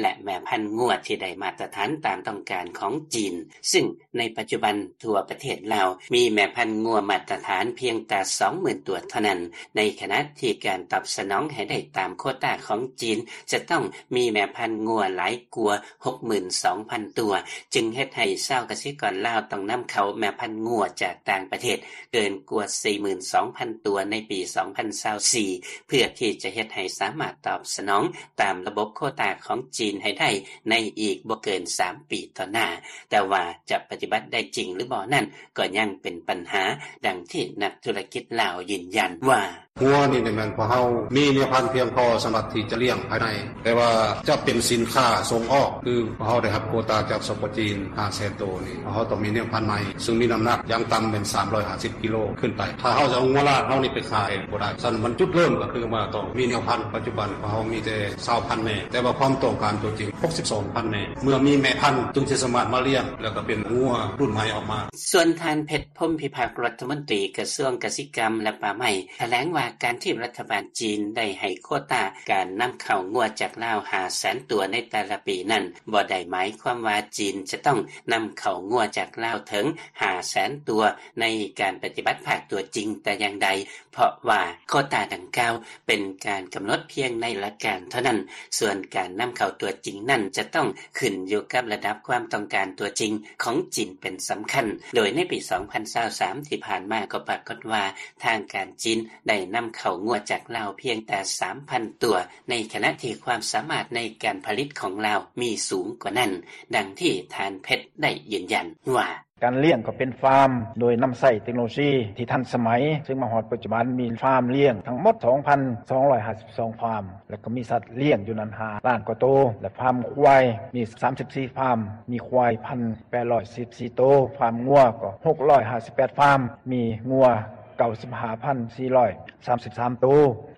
ແລະ ແມ່ພັນງົວທີ່ໄດ້ມາດຕະຖານຕາມຕ້ອງການຂອງຈີນ. ຊຶ່ງໃນປັດຈຸບັນທົ່ວປະເທດລາວ ມີແມ່ພັນງົວມາດຕະຖານພຽງແຕ່ສອງໝື່ນຕົວເທົ່ານັ້ນ, ໃນຂະນະທີ່ການຕອບສະໜອງໃຫ້ໄດ້ຕາມໂຄຕາຂອງຈີນ ຈະຕ້ອງມີແມ່ພັນງົວຫຼາຍກວ່າ ຫົກໝື່ນສອງພັນຕົວ ຈຶ່ງເຮັດໃຫ້ຊາວກະສິກອນລາວຕ້ອງນຳເຂົ້າແມ່ພັນງົວຈາກຕ່າງປະເທດເກີນກວ່າ ສີ່ໝື່ນສອງພັນຕົວໃນປີສອງພັນຊາວສີ່ ເພື່ອທີ່ຈະເຮັດໃຫ້ສາມາດຕອບສະໜອງຕາມລະບົບໂຄຕາຂອງຈີນໃຫ້ໄດ້ໃນອີກບໍ່ເກີນສາມປີຕໍ່ໜ້າ. ແຕ່ວ່າຈະປະຕິບັດໄດ້ຈິງຫຼືບໍ່ນັ້ນ ກໍຍັງເປັນບັນຫາ, ດັ່ງທີ່ນັກທຸລະກິດລາວຢືນຢັນວ່າ ງົວນີ້ແມ່ນພວກເຮົາມີແມ່ພັນພຽງພໍສຳລັບທີ່ຈະລ້ຽງພາຍໃນ, ແຕ່ວ່າຈະເປັນສິນຄ້າສົ່ງອອກ ຄືພວກເຮົາໄດ້ຮັບໂຄຕາຈາກ ສປ ຈີນ ຫ້າແສນໂຕນີ້ ພວກເຮົາຕ້ອງມີແມ່ພັນໃໝ່ ຊຶ່ງມີນ້ຳໜັກຢ່າງຕ່ຳແມ່ນສາມຮ້ອຍຫ້າສິບກິໂລຂຶ້ນໄປ. ຖ້າເຮົາຈະເອົາງົວລາດເຮົານີ້ໄປຂາຍບໍ່ໄດ້. ສະນັ້ນມັນຈຸດເລີ່ມກໍຄືວ່າຕ້ອງມີແມ່ພັນ. ປັດຈຸບັນພວກເຮົາມີແຕ່ຊາວພັນແມ່, ແຕ່ວ່າຄວາມຕ້ອງການຕົວຈິງ ຫົກສິບສອງພັນແມ່. ເມື່ອມີແມ່ພັນຈຶ່ງຊິສາມາດມາລ້ຽງ ແລ້ວກໍເປັນງົວລຸ້ນໃໝ່ອອກມາ. ສ່ວນທ່ານ ເພັດ ພົມພິພັກ ລັດຖະມົນຕີກະຊວງກະສິກຳ ແລະ ປ່າໄມ້ ຖະແຫຼງວ່າການທີ່ລັດຖະບານຈີນໄດ້ໃຫ້ໂຄຕາການນຳເຂົ້າງົວຈາກລາວຫ້າແສນຕົວໃນແຕ່ລະປີນັ້ນ ບໍ່ໄດ້ໝາຍຄວາມວ່າຈີນຈະຕ້ອງນຳເຂົ້າງົວຈາກລາວເຖິງຫ້າແສນຕົວໃນການປະຕິບັດພາກຕົວຈິງແຕ່ຢ່າງໃດ, ເພາະວ່າໂຄຕາດັ່ງກ່າວເປັນການກຳນົດພຽງໃນຫຼັກການເທົ່ານັ້ນ, ສ່ວນການນຳເຂົ້າຕົວຈິງນັ້ນຈະຕ້ອງຂຶ້ນຢູ່ກັບລະດັບຄວາມຕ້ອງການຕົວຈິງຂອງຈີນເປັນສຳຄັນ. ໂດຍໃນປີສອງພັນຊາວສາມທີ່ຜ່ານມາກໍປາກົດວ່າ ທາງການຈີນໄດ້ນຳເຂົ້າງົວຈາກລາວພຽງແຕ່ສາມພັນຕົວ, ໃນຂະນະທີ່ຄວາມສາມາດໃນການຜະລິດຂອງລາວມີສູງກວ່ານັ້ນ, ດັ່ງທີ່ທ່ານ ເພັດ ໄດ້ຢືນຢັນວ່າ ການລ້ຽງກໍເປັນຟາມໂດຍນຳໃຊ້ເຕັກໂນໂລຊີທີ່ທັນສະໄໝ, ຊຶ່ງມາຮອດປັດຈຸບັນມີຟາມລ້ຽງທັງໝົດສອງພັນສອງຮ້ອຍຫ້າສິບສອງຟາມ ແລະ ກໍມີສັດລ້ຽງຢູ່ນັ້ນຫ້າລ້ານກວ່າໂຕ ແລະ ຟາມຄວາຍມີສາມສິບສີ່ຟາມ, ມີຄວາຍພັນແປດຮ້ອຍສິບສີ່ໂຕ, ຟາມງົວກໍຫົກຮ້ອຍຫ້າສິບແປດຟາມ, ມີງົວເກົ້າສິບຫ້າພັນສີ່ຮ້ອຍສາມສິບສາມໂຕ,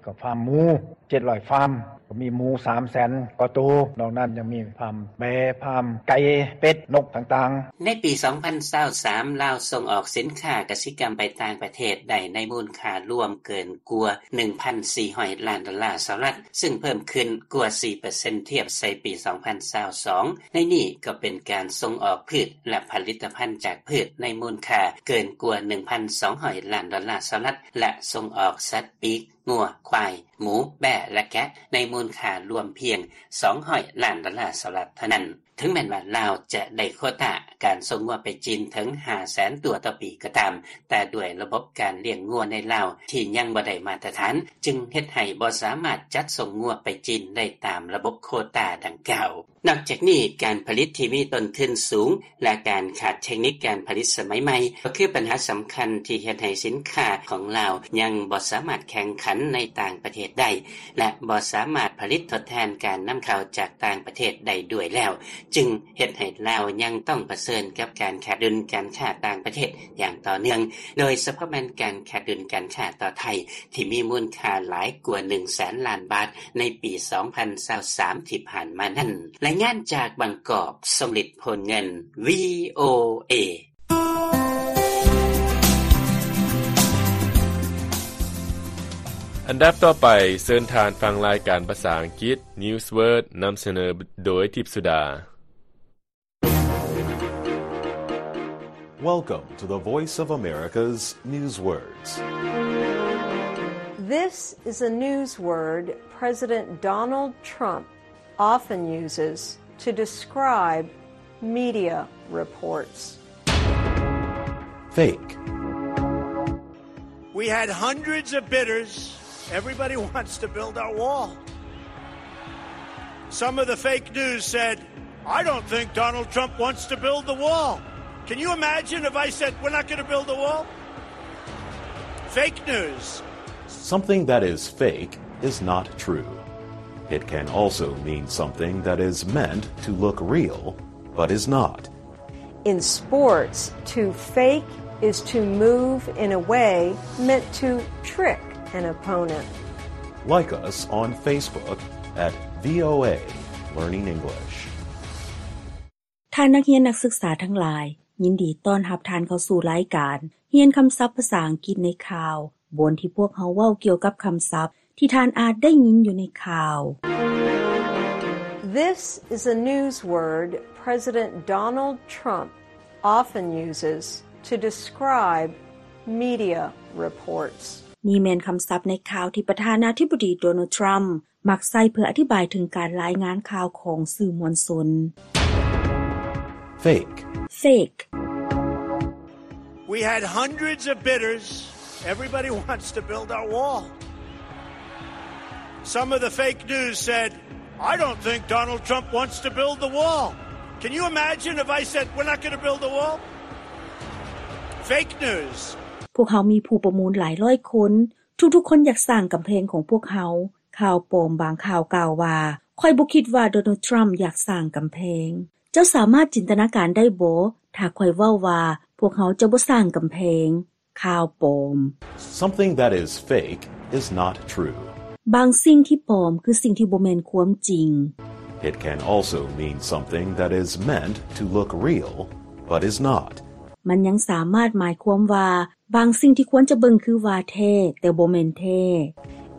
ກໍຟາມໝູເຈັດຮ້ອຍຟາມ, ກໍມີໝູສາມແສນກວ່າໂຕ, ນອກນັ້ນຍັງມີຟາມແບ້, ຟາມໄກ່, ເປັດ, ນົກຕ່າງໆ. ໃນປີສອງພັນຊາວສາມ ລາວສົ່ງອອກສິນຄ້າກະສິກຳໄປຕ່າງປະເທດໄດ້ໃນມູນຄ່າລວມເກີນກວ່າໜຶ່ງພັນສີ່ຮ້ອຍລ້ານໂດລາສະຫະລັດ, ຊຶ່ງເພີ່ມຂຶ້ນກວ່າສີ່ເປີເຊັນທຽບໃສ່ປີສອງພັນຊາວສອງ. ໃນນີ້ກໍເປັນການສົ່ງອອກພືດ ແລະ ຜະລິດຕະພັນຈາກພືດໃນມູນຄ່າເກີນກວ່າໜຶ່ງພັນສອງຮ້ອຍລ້ານໂດລາສະຫະລັດ ແລະ ສົ່ງອອກສັດປີກ ງົວ, ຄວາຍ, ໝູ, ແບ້ ແລະ ແກະ ໃນມູນຄ່າລວມພຽງສອງຮ້ອຍລ້ານໂດລາສະຫະລັດເທົ່ານັ້ນ. ເຖິງແມ່ນວ່າລາວຈະໄດ້ໂຄຕາການສົ່ງງົວໄປຈີນເຖິງຫ້າແສນຕົວຕໍ່ປີກໍຕາມ, ແຕ່ດ້ວຍລະບົບການລ້ຽງງົວໃນລາວທີ່ຍັງບໍ່ໄດ້ມາດຕະຖານ, ຈຶ່ງເຮັດໃຫ້ບໍ່ສາມາດຈັດສົ່ງງົວໄປຈີນໄດ້ຕາມລະບົບໂຄຕາດັ່ງກ່າວ. ນອກຈາກນີ້, ການຜະລິດທີ່ມີຕົ້ນທຶນສູງ ແລະ ການຂາດເທັກນິກການຜະລິດສະໄໝໃໝ່ ກໍຄືບັນຫາສຳຄັນທີ່ເຮັດໃຫ້ສິນຄ້າຂອງລາວຍັງບໍ່ສາມາດແຂ່ງຂັນໃນຕ່າງປະເທດໄດ້ ແລະ ບໍ່ສາມາດຜະລິດທົດແທນການນຳເຂົ້າຈາກຕ່າງປະເທດໄດ້ດ້ວຍແລ້ວ, ຈຶ່ງເຮັດໃຫ້ລາວຍັງຕ້ອງປະເຊີນກັບການຂາດດຸນການຄ້າຕ່າງປະເທດຢ່າງຕໍ່ເນື່ອງ, ໂດຍສະເພາະແມ່ນການຂາດດຸນການຄ້າຕໍ່ໄທ ທີ່ມີມູນຄ່າຫຼາຍກວ່າໜຶ່ງແສນລ້ານບາດໃນປີສອງພັນຊາວສາມທີ່ຜ່ານມານັ້ນ. ລາຍງານຈາກບາງກອກ, ຊົງລິດ ໂພນເງິນ ວີໂອເອ. ອັນດັບຕໍ່ໄປ, ເຊີນທ່ານຟັງລາຍການພາສາອັງກິດ Newsword ນຳສະເໜີໂດຍ ທິບສຸດາ. Welcome to the Voice of America's Newswords. This is a news word President Donald Trump often uses to describe media reports. Fake. We had hundreds of bidders. Everybody wants to build our wall. Some of the fake news said, "I don't think Donald Trump wants to build the wall." Can you imagine if I said, "We're not gonna build the wall"? Fake news. Something that is fake is not true. It can also mean something that is meant to look real, but is not. In sports, to fake is to move in a way meant to trick an opponent. Like us on Facebook at V O A Learning English. ທ່ານນັກຮຽນນັກສຶກສາທັງຫຼາຍ, ຍິນດີຕ້ອນຮັບທ່ານເຂົ້າສູ່ລາຍການຮຽນຄຳສັບພາສາອັງກິດໃນຂ່າວ, ບ່ອນທີ່ພວກເຮົາເວົ້າກ່ຽວກັບຄຳສັບທີ່ທ່ານອາດໄດ້ຍິນຢູ່ໃນຂ່າວ. This is a news word President Donald Trump often uses to describe media reports. ນີ້ແມ່ນຄຳສັບໃນຂ່າວທີ່ປະທານາທິບໍດີ ໂດນັລ ທຣຳ ມັກໃຊ້ເພື່ອອະທິບາຍເຖິງການລາຍງານຂ່າວຂອງສື່ມວນຊົນ. Fake. Fake. We had hundreds of bidders. Everybody wants to build our wall. Some of the fake news said, "I don't think Donald Trump wants to build the wall." Can you imagine if I said, "We're not gonna build the wall"? Fake news. ພວກເຮົາມີຜູ້ປະມູນຫຼາຍຮ້ອຍຄົນ. ທຸກໆຄົນຢາກສ້າງກຳແພງຂອງພວກເຮົາ. ຂ່າວປອມບາງຂ່າວກ່າວວ່າ, ຂ້ອຍບໍ່ຄິດວ່າໂດນັລ ທຣຳ ຢາກສ້າງກຳແພງ. ເຈົ້າສາມາດຈິນຕະນາການໄດ້ບໍ່ ຖ້າຂ້ອຍເວົ້າວ່າພວກເຮົາຈະບໍ່ສ້າງກຳແພງ? ຂ່າວປອມ. Something that is fake is not true. ບາງສິ່ງທີ່ປອມຄືສິ່ງທີ່ບໍ່ແມ່ນຄວາມຈິງ. It can also mean something that is meant to look real, but is not. ມັນຍັງສາມາດໝາຍຄວາມວ່າ ບາງສິ່ງທີ່ຄວນຈະເບິ່ງຄືວ່າແທ້, ແຕ່ບໍ່ແມ່ນແທ້.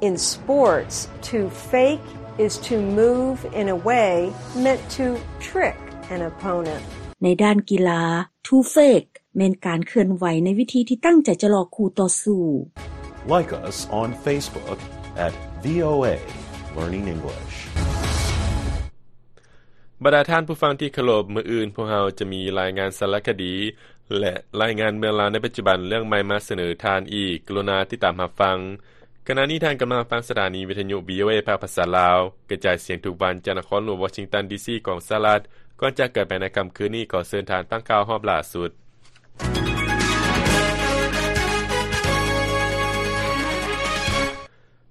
In sports, to fake is to move in a way meant to trick an opponent. ໃນດ້ານກິລາ, to fake ແມ່ນການເຄື່ອນໄຫວໃນວິທີທີ່ຕັ້ງໃຈຈະຫຼອກຄູ່ຕໍ່ສູ້. Like us on Facebook at V O A Learning English. ບັນດາທ່ານຜູ້ຟັງທີ່ເຄົາລົບ, ມື້ອື່ນພວກເຮົາຈະມີລາຍງານສາລະຄະດີ ແລະ ລາຍງານເມືອງລາວໃນປັດຈຸບັນເລື່ອງໃໝ່ມາສະເໜີທ່ານອີກ. ກະລຸນາຕິດຕາມຮັບຟັງ. ຂະນະນີ້ທ່ານກຳລັງຟັງສະຖານີວິທະຍຸ V O A ພາກພາສາລາວ, ກະຈາຍສຽງທຸກວັນຈາກນະຄອນຫຼວງວໍຊິງຕັນ ດີຊີ ຂອງສະຫະລັດ. ກ່ອນຈາກກັນໄປໃນຄ່ຳຄືນນີ້, ຂໍເຊີນທ່ານຟັງຂ່າວຮອບລ່າສຸດ.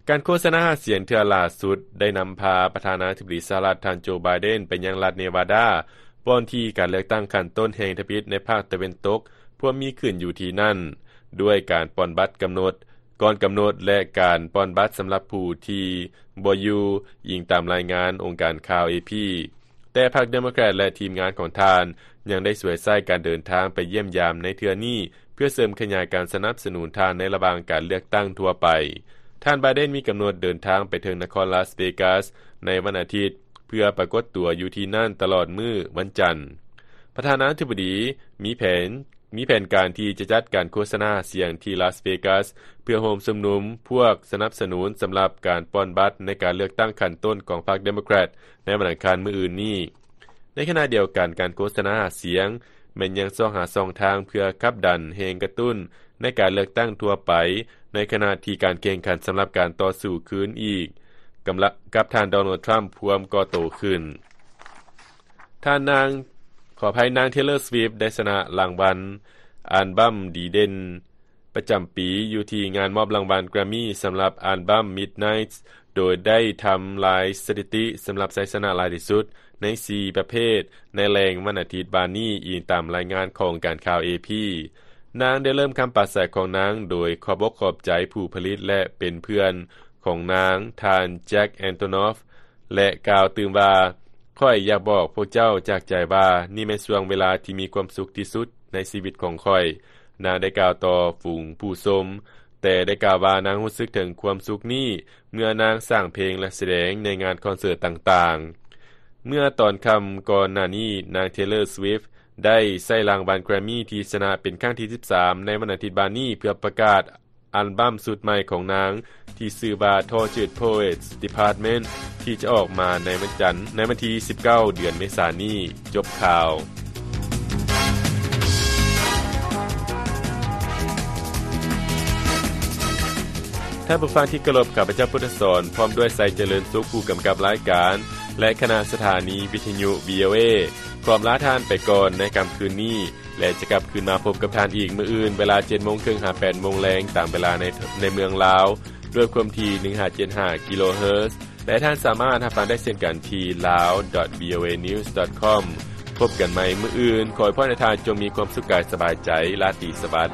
ການໂຄສະນາຫາສຽງເທື່ອລ່າສຸດໄດ້ນຳພາປະທານາທິບໍດີສະຫະລັດ ທ່ານ ໂຈ ໄບເດັນ ໄປຍັງລັດເນວາດາ, ບ່ອນທີ່ການເລືອກຕັ້ງຂັ້ນຕົ້ນແຫ່ງທຳອິດໃນພາກຕາເວັນຕົກພວມມີຂຶ້ນຢູ່ທີ່ນັ້ນ, ດ້ວຍການປ່ອນບັດກຳນົດ, ກ່ອນກຳນົດ ແລະ ການປ່ອນບັດສຳລັບຜູ້ທີ່ບໍ່ຢູ່, ອີງຕາມລາຍງານອົງການຂ່າວ ເອ ພີ. ແຕ່ພັກເດໂມແຄຣດ ແລະ ທີມງານຂອງທ່ານຍັງໄດ້ສວຍໃຊ້ການເດີນທາງໄປຢ້ຽມຢາມໃນເທື່ອນີ້ ເພື່ອເສີມຂະຫຍາຍການສະໜັບສະໜູນທ່ານໃນລະຫວ່າງການເລືອກຕັ້ງທົ່ວໄປ. ທ່ານ ໄບເດັນ ມີກຳນົດເດີນທາງໄປເຖິງນະຄອນລາສເວກາສໃນວັນອາທິດ ເພື່ອປາກົດຕົວຢູ່ທີ່ນັ້ນຕະຫຼອດມື້ວັນຈັນ. ປະທານາທິບໍດີມີແຜນ ມີແຜນການທີ່ຈະຈັດການໂຄສະນາຫາສຽງທີ່ລາສເວກາສ ເພື່ອໂຮມຊຸມນຸມພວກສະໜັບສະໜູນສຳລັບການປ່ອນບັດໃນການເລືອກຕັ້ງຂັ້ນຕົ້ນຂອງພັກເດໂມແຄຣດໃນວັນອັງຄານມື້ອື່ນນີ້. ໃນຂະນະດຽວກັນ, ການໂຄສະນາຫາສຽງແມ່ນຍັງຊອກຫາຊ່ອງທາງເພື່ອຂັບດັນແຮງກະຕຸ້ນໃນການເລືອກຕັ້ງທົ່ວໄປ, ໃນຂະນະທີ່ການແຂ່ງຂັນສຳລັບການຕໍ່ສູ້ຄືນອີກກັບທ່ານ ໂດນັລ ທຣຳ ພວມກໍ່ໂຕຂຶ້ນ. ທ່ານນາງ, ຂໍອະໄພ, ນາງ ເທເລີ ສະວິບ ໄດ້ຊະນະລາງວັນອັນບັ້ມດີເດັ່ນປະຈຳປີ ຢູ່ທີ່ງານມອບລາງວັນແກຣມມີສຳລັບອັນບັ້ມ Midnights ໂດຍໄດ້ທຳລາຍສະຖິຕິສຳລັບໄຊຊະນະຫຼາຍທີ່ສຸດໃນສີ່ປະເພດໃນແລງວັນອາທິດວານນີ້, ອີງຕາມລາຍງານຂອງການຂ່າວ ເອ ພີ. ນາງໄດ້ເລີ່ມຄຳປາໄສຂອງນາງໂດຍຂອບອົກຂອບໃຈຜູ້ຜະລິດ ແລະ ເປັນເພື່ອນຂອງນາງ, ທ່ານ ແຈັກ ແອນໂທນອຟ ແລະ ກ່າວຕື່ມວ່າ, ຂ້ອຍຢາກບອກພວກເຈົ້າຈາກໃຈວ່າ ນີ້ແມ່ນຊ່ວງເວລາທີ່ມີຄວາມສຸກທີ່ສຸດໃນຊີວິດຂອງຂ້ອຍ. ນາງໄດ້ກ່າວຕໍ່ຝູງຜູ້ຊົມ, ແຕ່ໄດ້ກ່າວວ່ານາງຮູ້ສຶກເຖິງຄວາມສຸກນີ້ເມື່ອນາງສ້າງເພງ ແລະ ສະແດງໃນງານຄອນເສີດຕ່າງໆ. ເມື່ອຕອນຄ່ຳກ່ອນໜ້ານີ້, ນາງ ເທເລີ ສະວິບ ໄດ້ໃຊ້ລາງວັນແກຣມມີທີ່ຊະນະເປັນຄັ້ງທີສິບສາມໃນວັນອາທິດວານນີ້ ເພື່ອປະກາດ ອັລບັ້ມຊຸດໃໝ່ຂອງນາງທີ່ຊື່ວ່າ Tortured Poets Department ທີ່ຈະອອກມາໃນວັນຈັນ ໃນວັນທີສິບເກົ້າ ເດືອນເມສານີ້. ຈົບຂ່າວ. ທ່ານຜູ້ຟັງທີ່ເຄົາລົບ, ຂ້າພະເຈົ້າ ພຸດທະສອນ ພ້ອມດ້ວຍ ໄຊຈະເລີນສຸກ ຜູ້ກຳກັບລາຍການ ແລະ ຄະນະສະຖານີວິທະຍຸ ວີ ໂອ ເອ ຂໍອຳລາທ່ານໄປກ່ອນໃນຄ່ຳຄືນນີ້ ແລະ ຈະກັບຄືນມາພົບກັບທ່ານອີກມື້ອື່ນ ເວລາເຈັດໂມງເຄິ່ງຫາແປດໂມງແລງ ຕາມເວລາໃນ ໃນເມືອງລາວ ດ້ວຍຄວາມຖີ່ ໜຶ່ງຫ້າເຈັດຫ້າ ກິໂລເຮີດ. ແລະ ທ່ານສາມາດຮັບຟັງໄດ້ເຊັ່ນກັນທີ່ lawdotvoanews.com. ພົບກັນໃໝ່ມື້ອື່ນ. ຂໍອວຍພອນໃຫ້ທ່ານຈົ່ງມີຄວາມສຸກກາຍສະບາຍໃຈ. ລາຕີສະຫວັດ.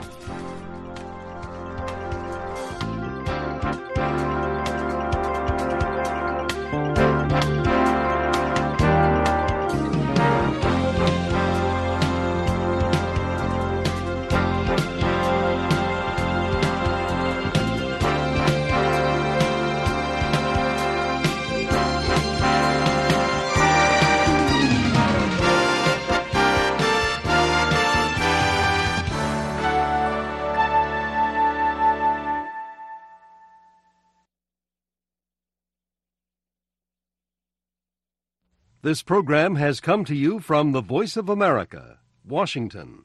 This program has come to you from the Voice of America, Washington.